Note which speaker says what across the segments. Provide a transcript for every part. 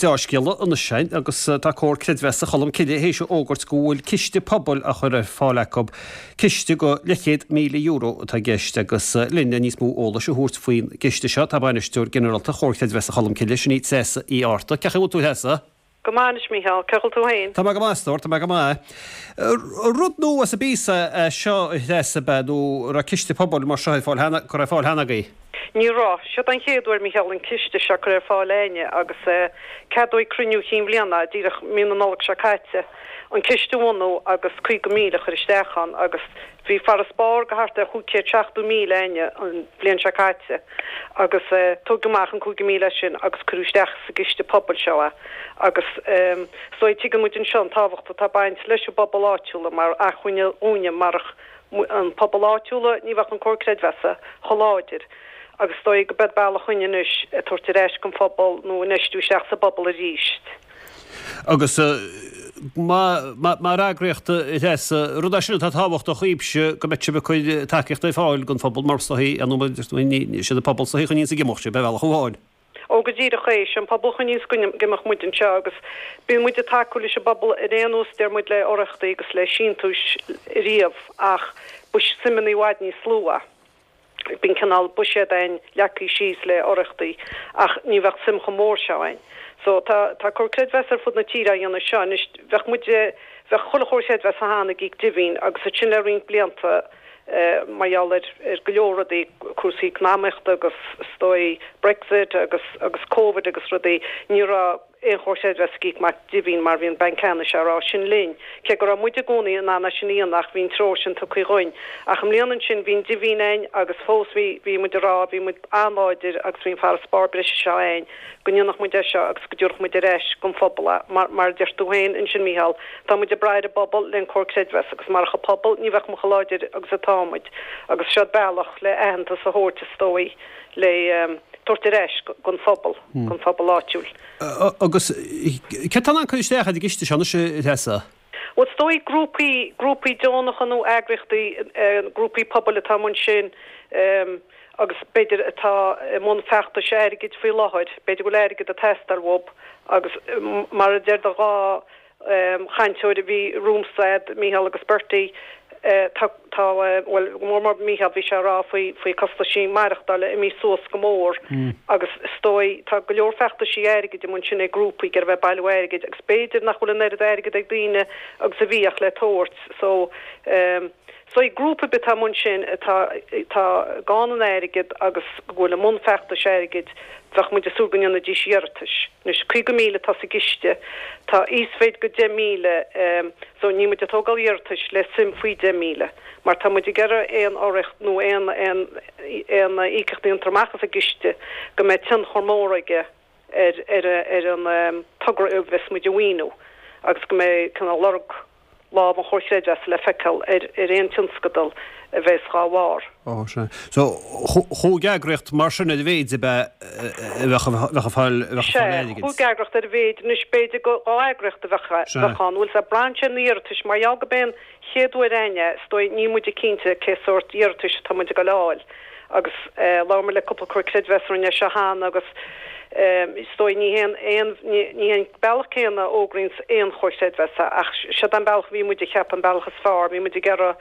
Speaker 1: Deá-scéala anois againn agus tá Comhar Creidmheasa Cholm Cille théis a fhógairt go bhfuil ciste pobail á chur ar fáil acu. Ciste go leathchéad €1,000 atá i gceist agus linn le níos mó eolais a thabhairt faoin gciste seo tá Bainisteoir Ginearálta Chomhar Creidmheasa Cholm Cille, sin í Treasa Uí Fhátharta. Cén chaoi a bhfuil tú a Threasa?
Speaker 2: Go maith anois Mícheál, cén chaoi a bhfuil tú féin?
Speaker 1: Tá mé go maith a stór, tá mé go maith. Rud nua sa bpíosa é seo a Threasa ab ea nó an raibh ciste pobail mar seo ar fáil cheana, curtha ar fáil cheana agaibh?
Speaker 2: Ní raibh. Seod an chéad uair Mícheál an ciste seo curtha ar fáil a'inne agus ceadaíodh ag cruinniú chinn bhliana, díreach mí na Nollag seo caite, an ciste a bhunú agus 50,000 a chur isteach ann agus Bhí farasbarr go thart ar 570,000 a'inne an bhliain seo caite agus tógadh amach an 50,000 as sin agus cuireadh isteach sa gciste pobail seo é agus is dóigh tuigeann muid anseo an tábhacht atá ag baint leis an bpobal áitiúla mar acmhainne dhúinne marach an pobal áitiúla ní bheadh an Comhar Creidmheasa chomh láidir agus is dóigh go b'é bealach dhúinne anois ag tabhairt ar ais don phobal nó infheistiú isteach sa bpobal arís.
Speaker 1: Agus mar eagraíocht, a Threasa, rud é sin atá tábhachtach dhaoibhse, go mbeidh sibh ag cur tacaíocht ar fáil don phobal mar is dóichí, ar ndóigh, siad an pobal is dóichí a choinníonns ag imeacht sibh, ar bhealach amháin.
Speaker 2: Ó, go díreach é, sé an pobal a choinníonns ag imeacht muid anseo agus bíonn muid ag tacú leis an bpobal ar aon nós, deir muid le urraíochtaí agus le síntiúis riamh ach ba suimeanna i bhfad níos lú é. Bíonn cineál buiséad a'inn leagtha síos le urraíochtaí ach ní bheadh suim chomh mór seo a'inn. So tá tá Comhar Creidmheasa ar fud na tíre á dhéanamh seo anois. Bheadh muid, bheadh chuile Chomhar Creidmheasa cheana ag íoc dividend agus ansin le roinnt blianta mar gheall ar ar go leor rudaí, cúrsaí eacnamaíochta agus is dóigh Brexit agus agus Covid agus rudaí, ní raibh aon Chomhar Creidmheasa ag íoc amach dividend mar bhí an Banc Ceannais á rá sin linn, cé go raibh muid i gcónaí in ann é sin a dhéanamh ach bhí an treoir sin tugtha dhuinn. Ach i mbliana ansin bhí an dividend a'inn agus fós bhí, bhí muid ag rá, bhí muid an-láidir agus bhí an farasbarr breise seo a'inn go ndéanfadh muid é seo agus go dtabharfadh muid ar ais don phobal é. Mar, mar a deir tú féin ansin Mícheál, tá muid ag brath ar an bpobal le an Comhar Creidmheasa agus marach an pobal ní bheadh muid chomh láidir agus atá muid agus seo bealach le aitheantas a thabhairt is dóigh le tabhairt ar ais don phobal, don phobal áitiúil.
Speaker 1: Agus céard atá in ann cur isteach ar an gciste seo anois, a Threasa?
Speaker 2: Bhuel, is dóigh grúpaí, grúpaí deonacha nó eagraíochtaí, grúpaí pobail atá i mbun sin agus b'fhéidir atá i mbun feachtais airgid faoi láthair, b'fhéidir go bhfuil airgead ag teastáil uathu agus mar a deir do dha chainteoir a bhí romhamsa, a'd, Mícheál agus Bertie, tá, tá, bhuel, go mór mór Mícheál, bhí sé ag rá faoi, faoi costaisí maireachtála imithe suas go mór agus is dóigh, tá go leor feachtaisí airgid i mbun sin ag grúpaí ag iarraidh bheith ag bailiú airgid agus b'fhéidir nach bhfuil an oiread airgid ag daoine agus a bhíodh le tabhairt so, So grúpa ar bith atá i mbun sin atá atá gann in airgead agus go bhfuil i mbun feachtais airgid, bheadh muid ag súil go ndéanfaidís iarratais. Anois, 50,000 atá sa gciste, tá íosmhéid go 10,000, so níl muid ag tógáil iarratais le suim faoi 10,000, mar tá muid ag iarraidh aon urraíocht nó aon aon aon íocaíocht a dhéantar amach as an gciste go mbeidh tionchar mór aige ar ar ar an togra a bheas muid a mhaoiniú agus go mbeidh cineál lorg lámh an Chomhair Chreidmheasa le feiceáil ar ar aon tionscadal a bheas dhá bharr.
Speaker 1: Ó, sea. So, chúig eagraíocht mar sin ar a mhéid ab ea a bheadh bheadh ag fáil bheadh ag fáil
Speaker 2: Sea,
Speaker 1: airgid?
Speaker 2: chúig eagraíocht ar a mhéid. Anois, b'fhéidir go dhá eagraíocht a bheadh
Speaker 1: Sea.
Speaker 2: bheadh ann. Bhfuil 's a'd, braitheann sé ar na iarratais. Mar gheall go b'é an chéad uair a'inn é, is dóigh, níl muide cinnte cé sórt iarratais atá muid ag dul a fháil. Agus labhair muid le cúpla comhar creidmheasa a rinne é seo cheana agus is dóigh ní haon aon ní hé an bealach céanna a fhógraíonns aon chomhar creidmheasa ach seod an bealach a bhí muid a cheapadh an bealach is fearr. Bhí muid ag iarraidh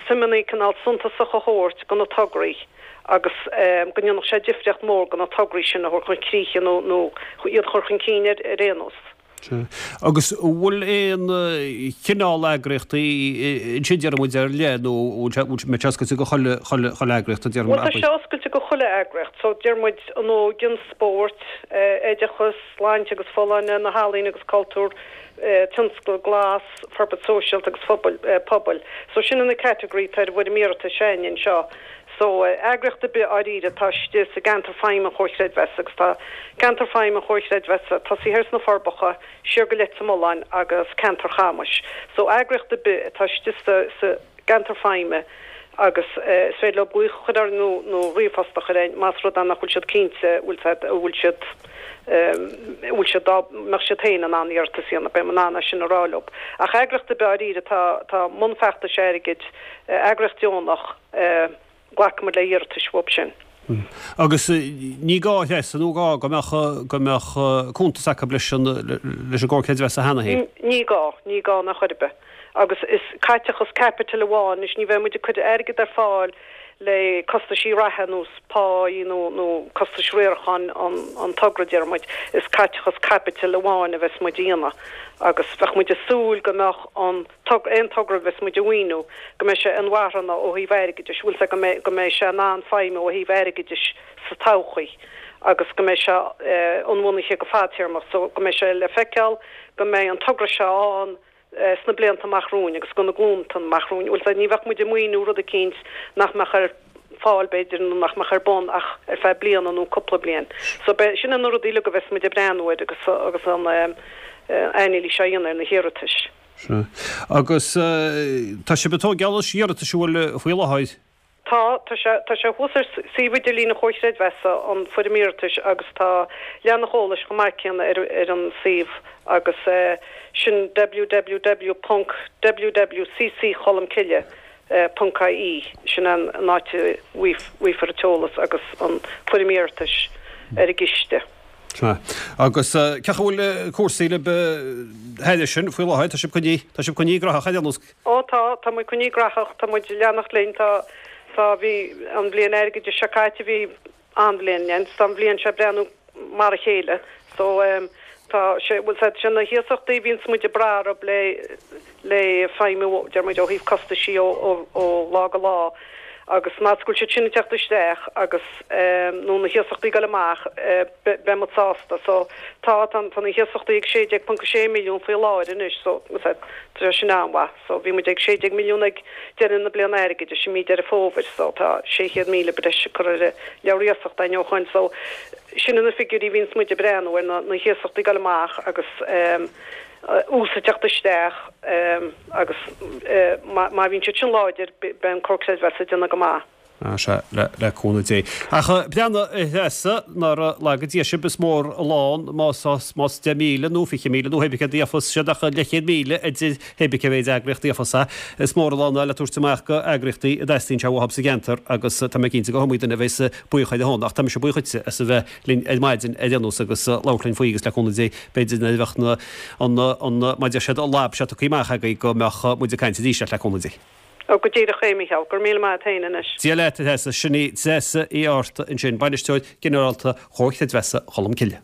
Speaker 2: suimeanna cineál suntasach a thabhairt do na tograí agus go ndéanfadh sé difríocht mhór do na tograí sin a thabhairt chun críche nó nó iad a chur chun cinn ar ar aon nós.
Speaker 1: Sea. Agus an bhfuil aon chineál eagraíochtaí ansin, déarfaidh muid, ar leith nó an bhfuil sé oscailte go chuile, chuile, chuile eagraíocht, déarfaidh
Speaker 2: Bhuel, tá
Speaker 1: muid?
Speaker 2: sé oscailte go chuile eagraíocht. So, deir muid, an óige, an spórt, oideachas, sláinte agus folláine, na healaíona agus cultúr, tionscal glas, forbairt sóisialta agus phobail, pobail. So, sin na category atá ar an bhfoirm iarratais a'inne anseo. So, eagraíocht ar bith dháiríre atá istigh sa gceantar feidhme an Chomhair Chreidmheasa agus tá ceantar feidhme an Chomhair Chreidmheasa tosaithe thiar sna Forbacha, siar go Leitir Mealláin agus ceantar Chamais. So, eagraíocht ar bith atá istigh sa sa gceantar feidhme agus is féidir leo glaoch a chur orainn nó nó ríomhphost a chur orainn más rud é nach bhfuil siad cinnte bhfuil siad an bhfuil siad an bhfuil siad dá mbeadh siad féin in ann iarratas a dhéanamh, beidh mé in ann é sin a rá leo. Ach eagraíocht ar bith dháiríre atá atá i mbun feachtais airgid, eagraíocht deonach, Glacfaimid le hiarratais uathu sin.
Speaker 1: Agus ní gá, a Threasa, nó gá go mbeadh, go mbeadh cuntas acu leis an, leis an gComhar Creidmheasa cheana féin?
Speaker 2: Ní gá, ní gá in aon chor ar bith. Agus is caiteachas caipitil amháin, anois ní bheidh muid ag cur airgead ar fáil le costaisí reatha ar nós páí nó, nó costais riaracháin an, an togra, déarfaidh muid, is caiteachas caipitil amháin a bheas muid a dhéanamh agus bheadh muid ag súil go mbeadh an togra, aon togra a bheas muid a mhaoiniú, go mbeidh sé inmharthana ó thaobh airgeadais, bhfuil 's agat, go mbeidh, go mbeidh sé in ann feidhmiú ó thaobh airgeadais sa todhchaí agus go mbeidh sé inbhuanaithe go fadtéarmach so go mbeidh sé le feiceáil go mbeidh an togra seo ann sna blianta amach romhainn agus do na glúnta amach romhainn. Bhfuil 's agat, ní bheadh muid ag maoiniú rud eicínt nach mbeadh ar fáil b'fhéidir nó nach mbeadh ar bun ach ar feadh bliana nó cúpla bliain. So beidh, sin na rudaí uilig a bheas muid ag breathnú air agus agus an anailís á dhéanamh ar na hiarratais.
Speaker 1: Sea. Agus tá sibh ag tógáil anois iarratais an bhfuil faoi láthair?
Speaker 2: Tá, tá sé, tá sé thuas ar suíomh idirlín an Chomhair Chreidmheasa, an foirm iarratais agus tá leathanach eolais chomh maith céanna ar ar an suíomh agus sin www ponc wwccholmcille ponc ie, sin an áit a bhfaighfear an t-eolas agus an foirm iarratais ar an gciste.
Speaker 1: Sea. Agus cén chaoi a bhfuil cúrsaí libh thairis sin faoi láthair? Tá sibh coinnithe, tá sibh coinnithe graitheach ar aon nós?
Speaker 2: Ó tá, tá muid coinnithe graitheach, tá muid ag leanacht linn, tá, tá, bhí an bhliain airgeadais seo caite, bhí an-bhliain againn, tá an bhliain seo ag breathnú mar a chéile. So, tá sé, bhfuil 's agat, sé na hiasachtaí a bhíonns muid ag brath orthu le, le feidhmiú, deir muid, ó thaobh costaisí ó, ó, ó lá go lá agus más go bhfuil siad sin ag teacht isteach agus, nó na hiasachtaí ag dul amach, beidh muid sásta. So, tá, tá, tá na hiasachtaí ag 16.6 milliún faoi láthair anois, so, tá sé sin an-mhaith. So, bhí muid ag 16 milliún ag deireadh na bliana airgeadais i mí Deireadh Fómhair, so tá 600,000 breise curtha ar an leabhar iasachta ó shoin. So, sin na figiúirí a bhíonns muid ag breathnú ar, na, na hiasachtaí ag dul amach agus, ús ag teacht isteach agus má bhíonn siad sin láidir beidh an Comhar Creidmheasa ag déanamh go maith.
Speaker 1: Sea, le cúnamh Dé. Ach breathnaigh a Threasa, nár laga Dia sibh, is mór an lán más 10,000 nó 20,000 nó hé bith céard a gheofas siad ach leathchéad míle idir hé bith cé mhéid eagraíocht a gheofas é. Is mór an lán é le tabhairt amach go eagraíochtaí a dteastaíonn sé uathu sa gceantar agus tá mé cinnte go hiomaí duine a bheas buíoch ar a shon. Ach tá mise buíoch dhuitse as a bheith linn ar maidin ar aon nós agus labhairt linn faoi agus le cúnamh Dé b'fhéidir nuair a bheadh na, an, an, mar a deir siad, an lab seo tugtha amach agaibh go mbeadh muid ag caint arís leat le cúnamh Dé.
Speaker 2: Ó, go díreach é, Mícheál. Go raibh míle maith a't féin anois.
Speaker 1: Dia leat, a Threasa. Sin í Treasa Uí Fhátharta ansin, Bainisteoir Ginearálta Chomhar Creidmheasa Cholmcille.